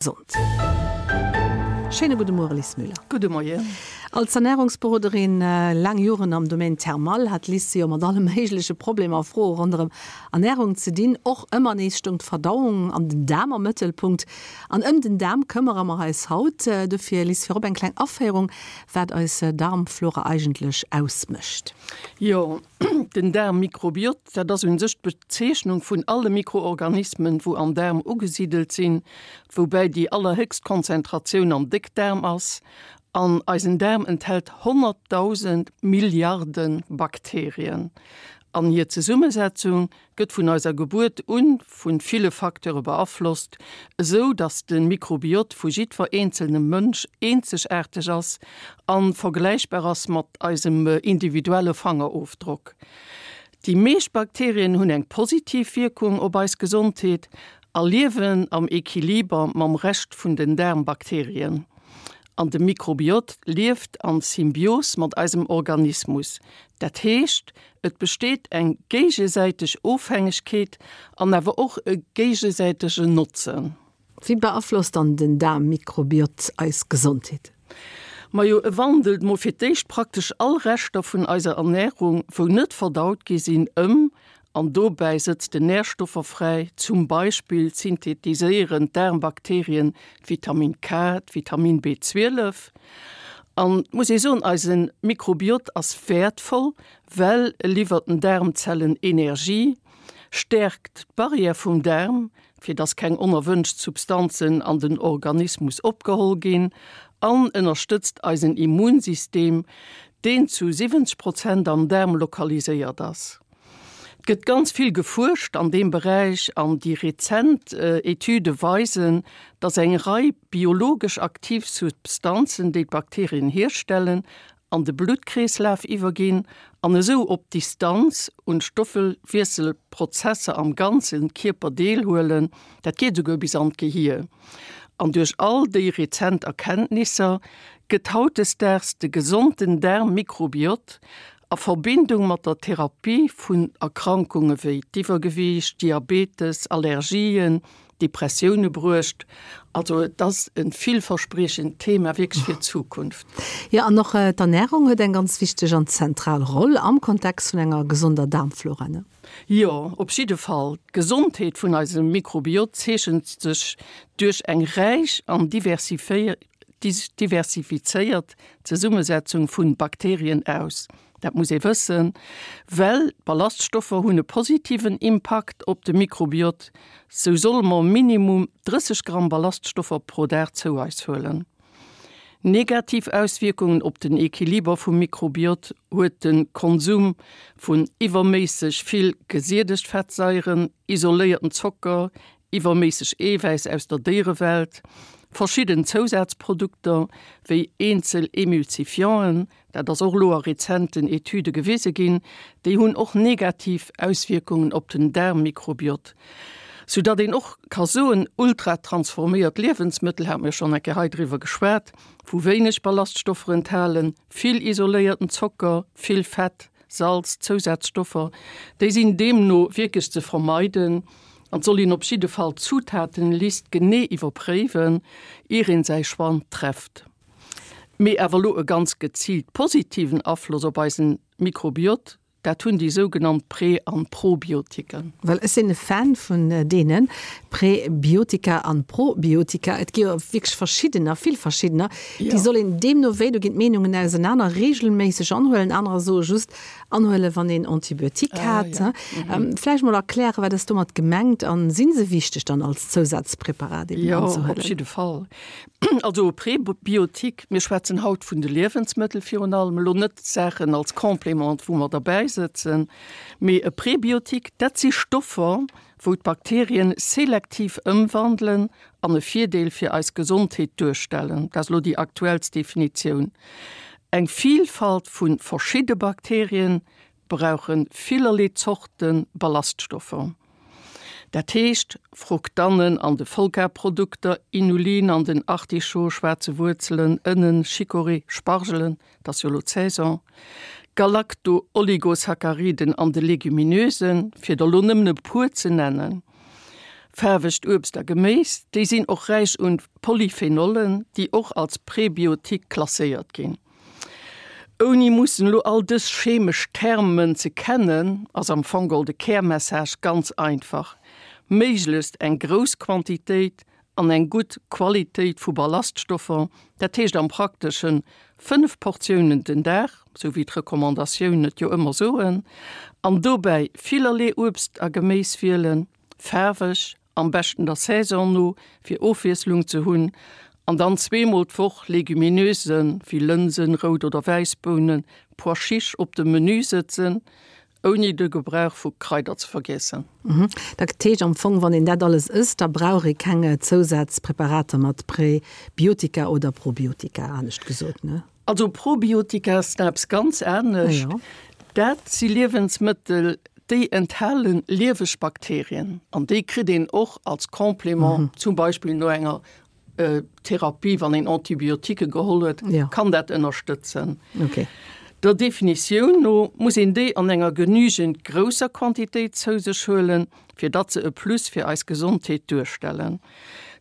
Gesond. Schéine gudde Muere Lis Müller. Gudde Moien. Als Ernärungsberoderin, laang Joren am Domaine thermal, hat d'Lis jo mat alle méigleche Problemer a Froe ronderëm Ernärung ze dinn. Och ëmmer nees stoung d'Verdauung an den Daarm am Mëttelpunkt. An ëm den Daarm këmmere mer eis haut. Dofir Lis, virop eng kleng Aféierung, wat eis Darmflora eigentlech ausmécht. Jo, Den Daarmmikrobiot, dat ass un sech d'Bezeechnung vun alle Mikroorganismen, wou am Daarm ugesidelt sinn, woubäi déi allerhéchst Konzentratioun am Déckdaarm ass. An eisen Daarm enthält 100.000 Milliarde Bakterien. An hir Zesummesetzung gëtt vun eiser Gebuert un vun ville Facteure beaflosst, esou dass de Mikrobiot vu jiddwer eenzelnem Mënsch eenzegaarteg ass an vergläichbar ass mat eisem individuelle Fangerofdrock. Déi meescht Bakterien hunn eng positiv Wierkung op eis Gesondheet a liewen am Equiliber mam Rescht vun den Daarmbakterien. An de Mikrobiot lieft an Symbios mat eisem Organismus, dat heescht Et besteet eng géigesäiteg Ofhängegkeet an awer och e géigesäitegen Notzen. Wéi beaflosst dann den Daarmmikrobiot eis Gesondheet? Majo, e wandelt mol fir d'éischt praktesch all Reschter vun eiser Ernärung, wou net verdaut gi sinn, ëm an dobäi sëtzt en Närstoffer fräi. Zum Beispill synthetiséieren d'Daarmbakterien d'Vitamin K, d'Vitamin B12. An et muss ee soen, eise Mikrobiot ass wäertvoll, well e liwwert den Daarmzellen Energie, stäerkt d'Barrière vum Daarm, fir dass keng onerwënscht Substanzen an den Organismus opgeholl ginn, an ënnerstëtzt eisen Immunsystem, deen zu 70 Prozent am Daarm lokaliséiert ass. Et gëtt ganz vill gefuerscht an deem Beräich an déi rezent Etüde weisen, dass eng Rei biologesch aktiv Substanzen, déi d'Bakterien hierstellen, an de Bluttkreeslaf iwwerginn an esou op Distanz un d'Stoffwiesselprozesser am ganze Kierper deelhuelen. Dat geet esouguer bis an d'Gehier. An duerch all déi rezent Erkenntnisser gëtt hautdesdaags de gesonten Daarmmikrobiot A Verbindung mat der Therapie vun Erkrankunge wéi d'Iwwergewiicht, Diabetes, Allergien, Depressioune bruecht. Also et ass e villverspriechend Thema wierklech fir d'Zukunft. Jo, an och d'Ernärung huet eng ganz wichteg an zentral Roll am Kontext vun enger gesonder Daarmflora, ne? Jo, op jidde Fall. D'Gesondheet vun eisem Mikrobiot zeechent sech duerch eng räich an diversifizéiert Zesummesetzung vun Bakterien aus. Dat muss ee wëssen, well d'Ballaststoffer hunn e positiven Impakt op de Mikrobiot. Sou solle mer minimum 30 Gramm Ballaststoffer pro Dag zou eis huelen. Negativ Auswierkungen op den Equiliber vum Mikrobiot huet de Konsum vun iwwerméisseg vill gesiedegt Fettsaieren, isoléierten Zocker, iwwerméisseg Eewäiss aus der Déierewelt, verschidden Zousazprodukter wéi eenzel Emulsifianten, dat ass och elo a rezenten Etüde gewise ginn, déi hunn och negativ Auswierkungen op den Daarmmikrobiot, soudatt een och ka soen, ultratransforméiert Liewensmëttel, hate mir schonn eng Kéier hei driwwer geschwat, wou wéineg Ballaststoffer enthalen, vill isoléierten Zocker, vill Fett, Salz, Zousazstoffer, déi sinn deemno wierklech ze vermeiden an et soll een op jidde Fall d'Zutatenlist genee iwwerpréiwen, ier een säi Choix trefft. Mee awer elo e ganz geziilt positiven Afloss op eisen Mikrobiot, dat hunn déi sougenannt Prä an Probiotiken. Well ech sinn e Fan vun deene Präbiotika an Probiotika. Et gi jo wierklech verschiddener, vill verschiddener. Déi soll een deemno wéi, do ginn d'Meenungen ausenaner, reegelméisseg anhuelen. Anerer soe just anhuelen, wann een Antibiotique hat. Vläicht mol erklären, wat ass domat gemengt an si se wichteg dann als Zousazpreparat eben anzehuelen? Jo, op jidde Fall. Also e Präbiotique, mir schwätzen haut vun de Liewensmëttel virun allem, elo net Saachen als Complément, wou mer derbäi sëtzen, mee e Präbiotique, dat si Stoffer, wou d'Bakterien selektiv ëmwandelen an e Virdeel fir eis Gesondheet duerstellen. Dat ass elo déi aktuellst Definitioun. Eng Vielfalt vu verschidde Bakterien brauche villerlee Zorte Ballaststoffer. Dat heescht, Fruktannen an de Vollgarprodukter, Inulin an den Artichaut, schwaarze Wuerzelen, Ënnen, Chicorée, Spargelen, 't ass jo elo d'Saison, Galacto-Oligosacchariden an de Legumineusen, fir der elo nëmmen e puer ze nennen. Faarwegt Uebst a Geméis, déi sinn och räich un Polyphenollen, déi och als Prebiotik klasséiert ginn. Ouni mussen elo all dës chemesch Termen ze kennen, ass am Fong geholl de Kärmessage ganz einfach, méiglechst eng grouss Quantitéit an eng gutt Qualitéit vu Ballaststoffer, dat heescht am Prakteschen 5 Portiounen den Dag, sou wéi d'Recommandatiounen et jo ëmmer soen, an dobäi villerlee Uebst a Geméis wielen, faarweg, am beschten der Saison no, fir Ofwiesslung ze hunn, an dann zweemol d'Woch Legumineusen, wéi Lënsen, Rout oder Wäissbounen, Pois chiches op de Menü sëtzen, ouni de Gebrauch vu Kraider ze vergiessen. Dat heescht am Fong, wann een dat alles ësst, da brauch ee keng Zousazpräparater mat Präbiotika oder Probiotika, anescht gesot, ne? Also Probiotika ass eppes ganz anescht. Dat si Liewensmëttel, déi enthale lieweg Bakterien an déi kritt een och als Complément, zum Beispill no enger Therapie, wann een Antibiotiquë geholl huet, kann dat ënnerstëtzen. Der Definitioun no muss een déi an enger genügend grousser Quantitéit zou sech huelen, fir datt se e Plus fir eis Gesondheet duerstellen.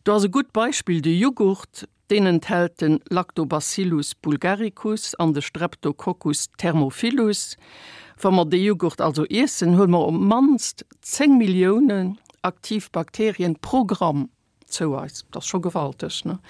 Do ass e gutt Beispill de Jughurt. Deen enthält de Lactobacillus bulgaricus an de Streptococcus thermophilus. Wa mer dee Jughurt also iessen, huele mer op d'mannst 10 Milliounen aktiv Bakterien pro Gramm zou eis. Dat ass scho gewalteg, ne?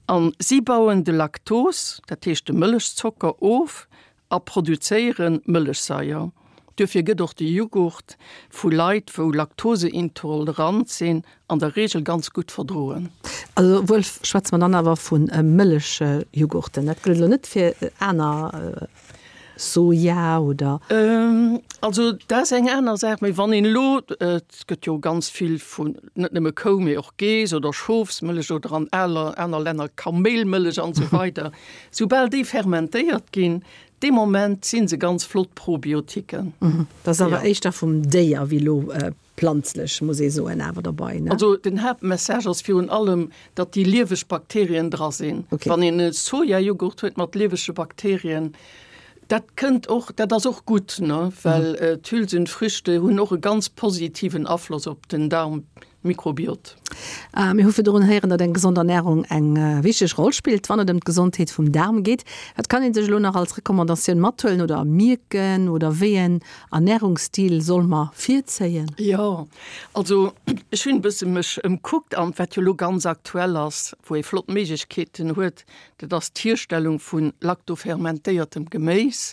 A si bauen de Laktos, dat heescht de Mëllechzocker, of A produzéiere Mëllechsaier. Duerfir gëtt och de Jughurt vu Leit, wou laktoseintolerant sinn, an der Reegel ganz gutt verdroen. Also wuel schwätze mer dann awer vu Mëllechjughurten. Dat gëllt elo net fir aner Soja oder. Also dat ass eng aner Saach. Mee wann een elo, et gëtt jo ganz vill vun, net nëmme Kou, mee och Geess oder Schofsmëllech oder an aner Länner Kaméilmëllech an esou weider, Soubal déi fermentéiert ginn, dee Moment si se ganz flott Probiotiken. Dat ass awer éischter vum Déier wéi elo planzlech, muss ee soen, awer derbei, ne? Also den Haaptmessage ass virun allem, datt déi lieweg Bakterien dra sinn. Wann een e Sojajoghurt huet mat liewege Bakterien, dat kënnt och, dat ass och gutt, ne, well d'Hülsenfrüchte hunn och e ganz positiven Afloss op den Darm. Mikrobiot. Mir hu virdrun héieren, datt eng gesond Ernärung eng wichteg Roll spillt, wann et ëm d'Gesondheet vum Daarm geet. Wat kann ee sech elo nach als Recommandatioun mathuelen oder mierken oder wéi en Ernärungsstil soll mer virzéien? Jo, also ech hunn e bësse mech ëmkuckt an wat jo elo ganz aktuell ass, wou ee flott Méiglechkeeten huet, dat ass d'Hierstellung vu laktofermentéiertem Geméis.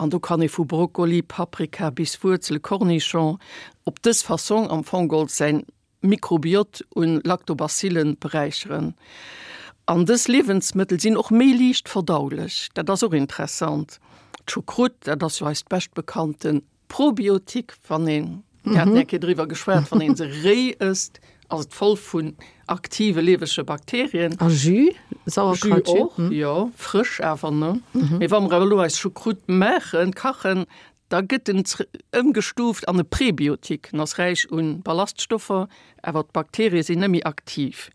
An do kann ee vu Brokkoli, Paprika bis Wuerzele, Cornichon op dës Fassong am Fong geholl säin Mikrobiot un Lactobacillen beräicheren. An dës Liewensmëttel sinn och méi liicht verdaulech, dat ass och interessant. D'Choucroute, dat ass jo eist beschtbekannten Probiotik, wann een, mir haten eng Kéier driwwer geschwat, wann een se réi ësst, ass et voll vun aktive liewege Bakterien. A Jus, Sauerkrautjus? Jus och, jo, frësch awer, ne? Mee wa mer awer elo eis Choucroute maachen, kachen, Da gëtt en ëmgestuuft an e Prebiotik. En ass räich un Ballaststoffer, awer d'Bakterie sinn net méi aktiv.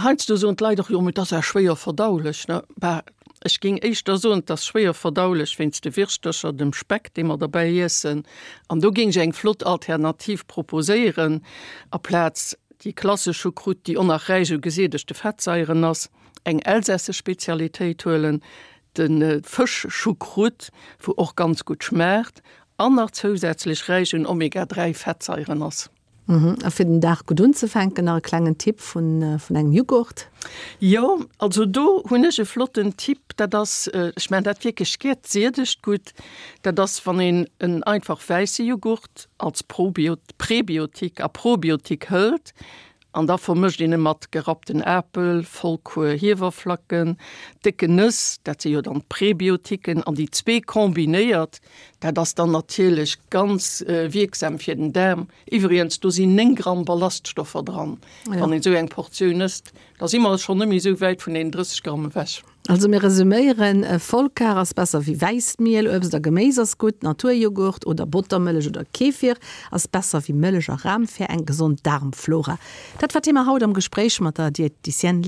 Heiansdo soen d'Leit och, jo mee dat ass awer schwéier verdaulech. Ne? Bah, ech géing éischter soen, et ass schwéier verdaulech wéinst de Wirschtercher, dem Speck, dee mer derbäi iessen. An do géing ech eng flott Alternativ proposéieren, aplaz déi klassesch Choucroute, déi och nach räich u gesiedegte Fettsaieren ass, eng elsässesch Spezialitéit huelen, De Fësch-Choucroute, wou och ganz gutt schmaacht an nach zousätzlech räich un Omega 3 Fettsaieren ass. A fir den Dag gutt unzefänken, nach e klengen Tipp vun engem Jughurt? Jo, also do hunn ech e flotten Tipp, dat ass, ech maachen dat wierklech gär, d'siedegt gutt. Dat ass wann een en einfach wäisse Jughurt als Prebiotik a Probiotik hëlt An da vermëscht een e mat gerappten Apel, Vollkuer Hiewerflacken, décken Nëss, dat si jo dann d'Prebiotiken, an déi zwee kombinéiert, dat ass dann natierlech ganz wierksam fir den Daarm. Iwwregens, do sinn 9 Gramm Ballaststoffer dran, wann een esou eng Portioun ësst. Da si mer schonn net méi esou wäit vun deenen 30 Gramm ewech. Also mir resuméieren, Vollkar ass besser wéi wäisst Miel, Uebst a Geméis ass gutt, Naturjoghurt oder Bottermëllech oder Kefir ass besser wéi Mëllech a Ram fir eng gesond Daarmflora. Dat war d'Thema haut am Gespréich mat der Diététicienne.